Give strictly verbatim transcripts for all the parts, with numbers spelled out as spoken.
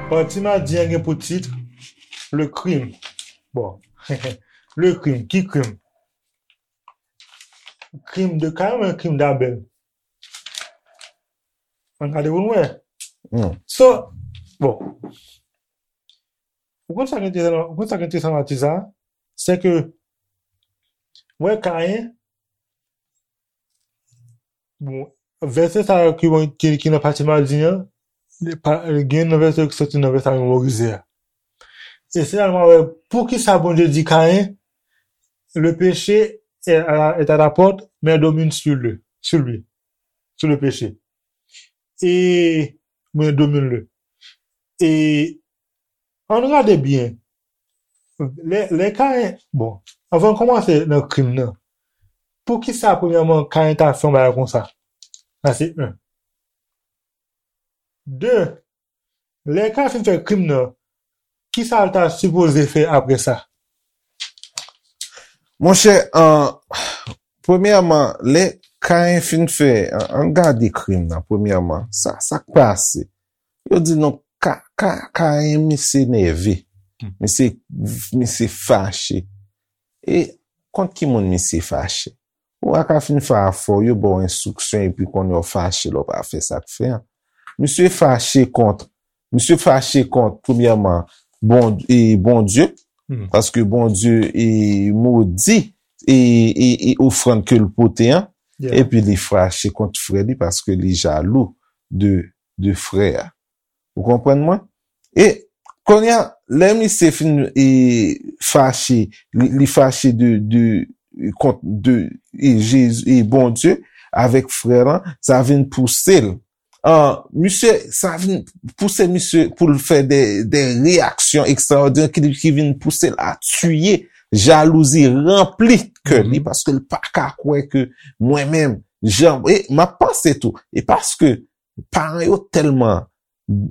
Pati madi an gen pou tit Le crime. Bon. Le crime. Ki krim? Krim de Kayen oubyen krim d'Abel? Ann gade pou n wè. Hmm. So, bon. Ou konn sa ki enteresan, ou konn sa ki enteresan nan ti sa? Se ke, wè Kayen, bon, vèsè sa yo ki, ki, ki nan pati madi an, li pa, gen nan vèsè yo ki soti nan vèsè a memorize a. E se la nou wè poukisa Bondye di Kayen, le péché est à la, est à la porte, mais domine sur lui, sur lui, sur le péché. E, men domine le. E, ann gade byen. Lè, lè Kayen, bon, anvan n kòmanse nan krim nan, poukisa, premyèman, Kayen ta fè yon bagay konsa? Sa se youn. De, lè Kayen fin fè krim nan, kisa l ta sipoze fè apre sa? Monchè, an, premyèman, lè Kayen fin fè, an, ann gade krim nan, premyèman, sa, sa k pase? Yo di non, Ka, Ka, Kayen misye nève, misye, misye fache. E kont ki moun misye fache? Ou pa ka fin fè afè w, yo ba w enstriksyon epi kounye a w fache lè w pa fè sa k fè an. Misye fache kont, misye fache kont, premyèman, bon, e, Bondye, paske Bondye e modi e, e, e ofrann ke l pote an, epi li fache kont frè li paske li jalou de, de frè a. Ou konprann mwen? E kounye a, lè misye fin e, fache, li, li fache de, de, kont de e, Jezi, e Bondye avèk frè lan, sa vin pouse l. An, misye, sa vin pouse misye pou l fè de, de reyaksyon ekstraòdinè ki, ki vin pouse l a tiye. Jalouzi ranpli kè li paske l pa ka kwè ke mwen menm, jan, e m ap panse tou, e paske paran yo tèlman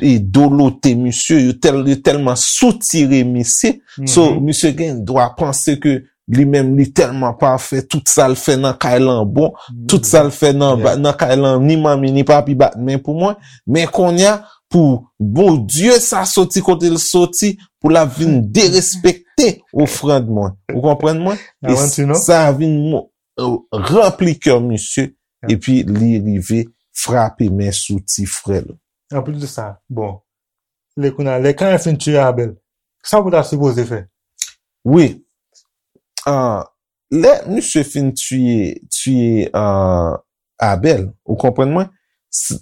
e dolote misye, yo tèl, yo tèlman soutire misye. So, misye gen dwa panse ke li menm li tèlman pafè, tout sa l fè nan kay lan bon, tout sa l fè nan, nan kay lan ni manmi ni papi bat men pou mwen. Men kounye a, pou Bondye sa soti kote l soti, pou l ap vin derespekte ofrann mwen. Ou konprann mwen? E sa vin ranpli kè misye, epi li rive frape men sou ti frè l. Anplis de sa, bon, lè kounye a, lè Kayen fin tiye Abèl, sa pou ta sipoze fè? Wi. Ah, lè misye fin tiye, tiye ah, Abèl, ou konprann mwen?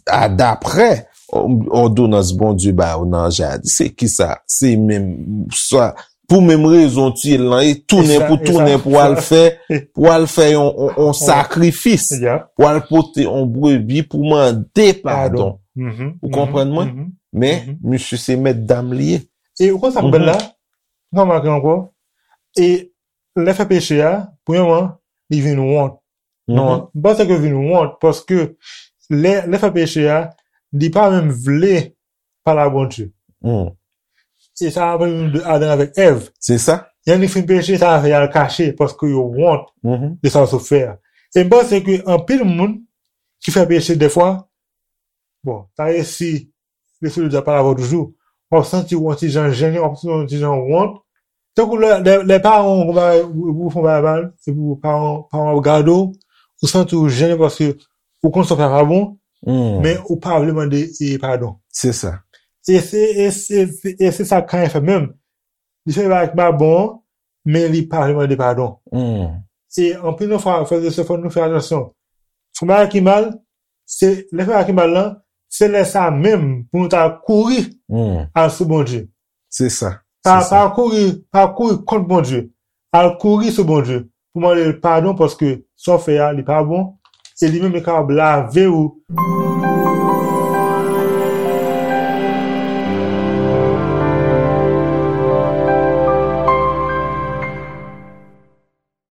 A, daprè òdonans Bondye ba yo nan jaden, se kisa? Se menm sa, pou menm rezon tiye l lan, e tounen pou tounen pou al fè, pou al fè yon, yon, yon sakrifis, pou al pote yon brebi pou mande padon. Ou konprann mwen? Men, misye se mèt dam li ye. E ou konn sa k bèl la? Ou konn sa k bèl la? E lè fè peche a, premyèman, li vin wont. Non, m panse ke vin wont, paske lè, lè fè peche a, li pa menm vle pale a Bondye. E sa raple nou de Adan avèk Èv. Se sa. Yonn fin peche, sa fè y al kache, paske yo wont de sa yo sot fè a. E m panse ke anpil moun ki fè peche dèfwa, bon, ta resi Lespri de Dye ap pale avè w toujou. W ap santi w yon ti jan jennen, w ap santi w yon ti jan wont. Tankou lè, lè, lè paran w, ou, ou fè yon bagay mal, epi paran, paran w ap gade w, ou santi w jennen paske ou konn sa w fè a pa bon, men ou pa vle mande e padon. Se sa. E se, e se, e se sa Kayen fè menm. Li fè bagay ki pa bon an, men li pa vle mande padon. E anpil nan fwa, frè e sè, fò nou fè atansyon. Fè bagay ki mal, se, lè fè bagay ki mal lan, se lè sa menm pou nou ta kouri al sou Bondye. Se sa. Pa, pa kouri, pa kouri kont Bondye. Al kouri sou Bondye pou mande l padon paske sa w fè a, li pa bon. E li menm li kapab lave w.